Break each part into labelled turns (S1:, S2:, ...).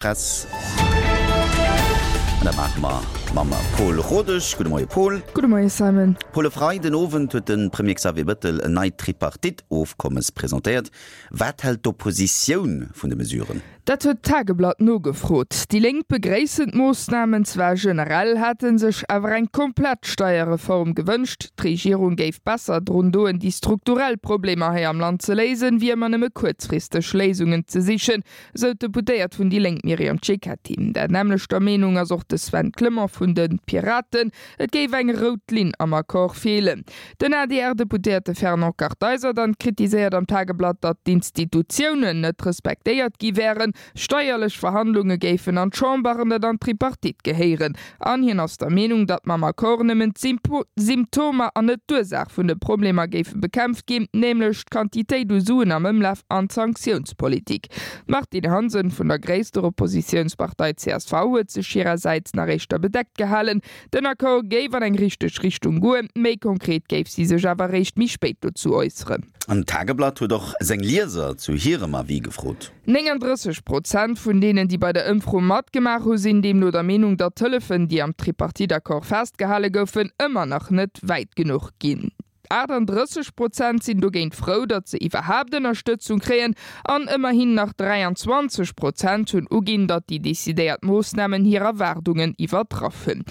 S1: Press. An dat maache mer mam Pol Rodesch. Gudde Moie Pol.
S2: Gudde Moie Simon.
S1: Pol, e Freiden Owend huet de Premier Xavier Bettel en neit Tripartite-Ofkommes presentéiert. Wat hält d'Oppositioun vun de Mesuren?
S2: Dat huet d'Tageblatt nogefrot. Déi Lénk begréissen d'Moossnamen zwar generell, hätte sech awer eng komplett Steierreform gewënscht. D'Regierung géif besser drun doen, déi strukturell Problemer hei am Land ze léisen, wéi ëmmer nëmme kuerzfristeg Léisungen ze sichen. Esou d'Deputéiert vun déi Lénk Myriam Cecchetti. Der nämmlechter Meenung ass och de Sven Clement vun de Piraten. Et géif eng rout Linn am Accord feelen. Den ADR-Deputéierte Fernand Kartheiser dann kritiséiert am Tageblatt, datt d'Institutiounen net respektéiert gi wären. Steierlech Verhandlunge géifen an d'Chamber an net an d'Tripartite gehéieren. An hien ass der Meenung, datt mam Accord nëmmen d'Symptomer an net d'Ursaach vun de Problemer géife bekämpft ginn, nämlech d'Quantitéit u Suen am Ëmlaf an d'Sanktiounspolitik. D'Martine Hansen vun der gréisster Oppositiounspartei csv huet sech hirersäits nach éischter bedeckt gehalen. Den Accord géif an eng richteg Richtung goen, méi konkret géif si sech awer eréischt méi spéit dozou äusseren.
S1: An d'Tageblatt huet och seng Lieser zu hirem Avis gefrot.
S2: 39 Prozent vun deenen, déi bei der Ëmfro matgemaach hu sinn deemno der Meenung, datt d'Hëllefen, déi am Tripartite-Accord festgehale goufen, ëmmer nach net wäit genuch ginn. 38 Prozent sinn dogéint frou, datt se iwwerhaapt Ënnerstëtzung kréien an ëmmerhin nach 23 Prozent hunn uginn, datt déi decidéiert Moossnamen hir Erwaardungen iwwertraff hunn.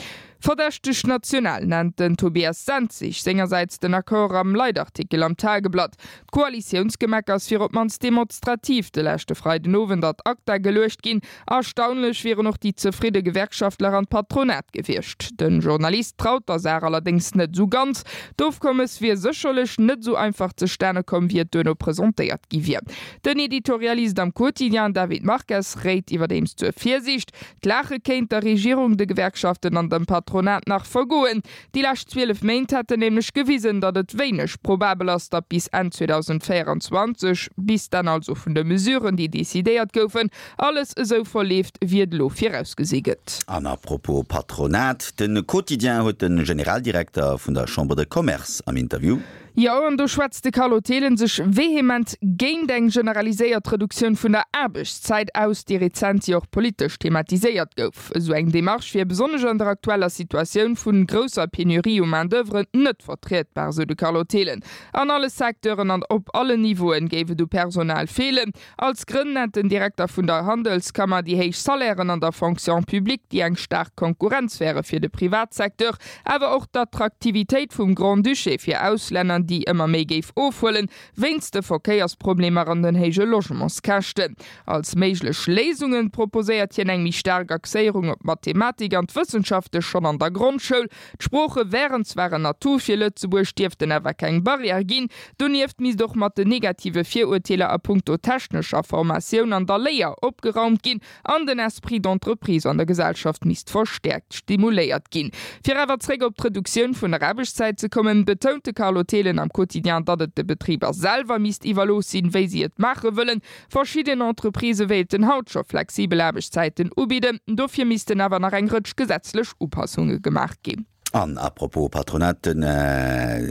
S2: Verdächteg national nennt den Tobias Senzig sengersäits den Accord am Leitartikel am Tageblatt. D'Koalitiounsgemeckers wier op d'mannst demonstrativ de leschte Freidenowend ad acta geluecht ginn. Erstaunlech wieren och déi zefridde Gewerkschaftler an d'Patronat gewiescht. De Journalist traut der Saach allerdéngs net esou ganz. D'Ofkommes wier sécherlech net esou einfach zustane komm, wéi et duerno presentéiert gi wier. Den Editorialist am Quotidien David Marques réit iwwerdeems zur Virsiicht. D'Laache kéint der Regierung, de Gewerkschaften an dem Patronat nach vergoen. Déi lescht 12 Méint hätten nämlech gewisen, datt et wéineg probabel ass, datt bis Enn 2024, bis d'Enn also vun de Mesuren, déi decidéiert goufen, alles esou verleeft, wéi et elo virausgesi gëtt.
S1: An à propos Patronat, de Quotidien huet de Generaldirekter vun der Chambre de Commerce am Interview.
S2: Jo, an do schwätzt de Carlo Thelen sech vehement géint eng generaliséiert Reduktioun vun der Aarbechtszäit aus, déi rezent jo och politesch thematiséiert gouf. Esou eng Demarche wier besonnesch an der aktueller Situatioun vun grousser Penurie u Main d'oeuvre net vertrietbar, sou de Carlo Thelen. An alle Secteuren an op allen Niveauen géif et u Personal feelen. Als Grënn nennt den Direkter vun der Handelskammer déi héich Salairen an der Fonction publique, déi eng staark Konkurrenz wäre fir de Privatsecteur, awer och d'Attraktivitéit vum Grand-Duché fir Auslänner, déi ëmmer méi géif ofhuelen, wéinst de Verkéiersproblemer an den héije Logementskäschten. Als méiglech Léisunge proposéiert hien eng méi staark Axéierung op d'Mathematik an d'Wëssenschafte schonn an der Grondschoul, D'Sprooche wären zwar en Atout fir Lëtzebuerg, dierften awer keng Barrière ginn. Donieft misst och mat den negative Virurteeler a punkto technescher Formatioun an der Léier opgeraumt ginn an den Esprit d'entreprise an der Gesellschaft misst verstäerkt stimuléiert ginn. Fir awer zréck op d'Reduktioun vun der Aarbechtszäit ze kommen, betount de Carlo Thelen am Quotidien, datt et de Betriber selwer misst iwwerlooss sinn, wéi si et maache wëllen. Verschidden Entreprisë wéilten haut scho flexibel Aarbechtszäiten ubidden, dofir missten awer nach eng Rëtsch gesetzlech Upassunge gemaach ginn.
S1: An à propos Patronat, de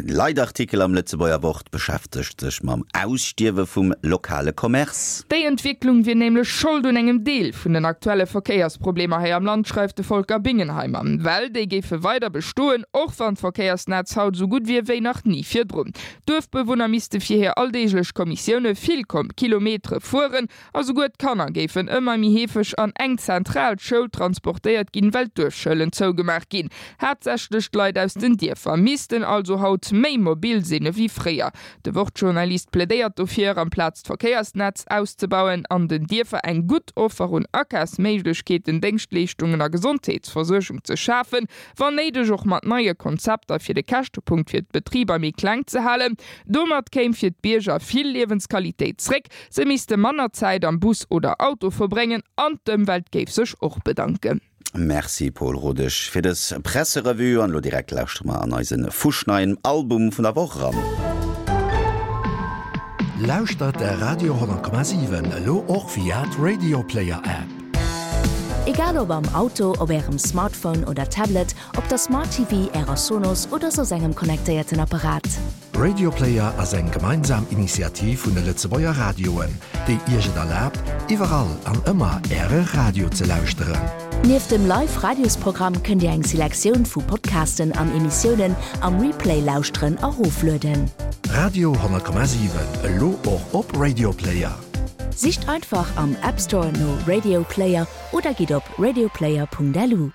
S1: Leitartikel am Lëtzebuerger Wort beschäftegt sech mam Ausstierwe vum lokale Commerce.
S2: Déi Entwécklung wier nämlech Schold un engem Deel vun den aktuelle Verkéiersproblemer hei am Land, schreift de Volker Bingenheimer. Well déi géife weider bestoen, och wann d'Verkéiersnetz haut esou gutt wier wéi nach ni virdrun. D'Duerfbewunner misste fir hir alldeeglech Kommissioune vill Kilometere fueren a souguer d'Kanner géifen ëmmer méi heefeg an eng zentral Schoul transportéiert ginn, well d'Duerfschoulen zougemaach ginn. Haaptsächlech d'Leit aus den Dierfer missten also haut méi mobil sinn ewéi fréier. De Wort-Journalist plädéiert dofir, amplaz d'Verkéiersnetz auszebauen, an den Dierfer eng gutt Offer un Akafsméiglechkeeten, Déngschtleeschtungen a Gesondheetsversuergung ze schafen, wann néideg och mat neie Konzepter fir de Käschtepunkt fir d'Betriber méi kleng ze halen. Domat kéim fir d'Bierger vill Liewensqualitéit zréck, se misste manner Zäit am Bus oder Auto verbréngen an d'Ëmwelt géif sech och bedanken.
S1: Merci Paul Rodesch fir dës Presserevue an elo direkt lauschtere mer an eise fuschneien Album vun der Woch eran.
S3: Lauschtert de Radio 10,7 elo och via d'Radioplayer App.
S4: Egal ob am Auto, op Ärem Smartphone oder Tablet, op der Smart TV, Ärer Sonos oder soss engem connectéierten Apparat.
S3: Radioplayer ass eng gemeinsam Initiativ vun de Lëtzebuerger Radioen, déi Iech et erlaabt, iwwerall an ëmmer Äre Radio ze lauschteren.
S4: Nieft dem Live-Radiosprogramm kënnt Dir eng Selektioun vu Podcasten an Emissiounen am Replay lauschteren a roflueden.
S3: Radio 10,7, elo och op Radioplayer.
S4: Sicht einfach am App Store no Radio Player oder gitt op radioplayer.lu.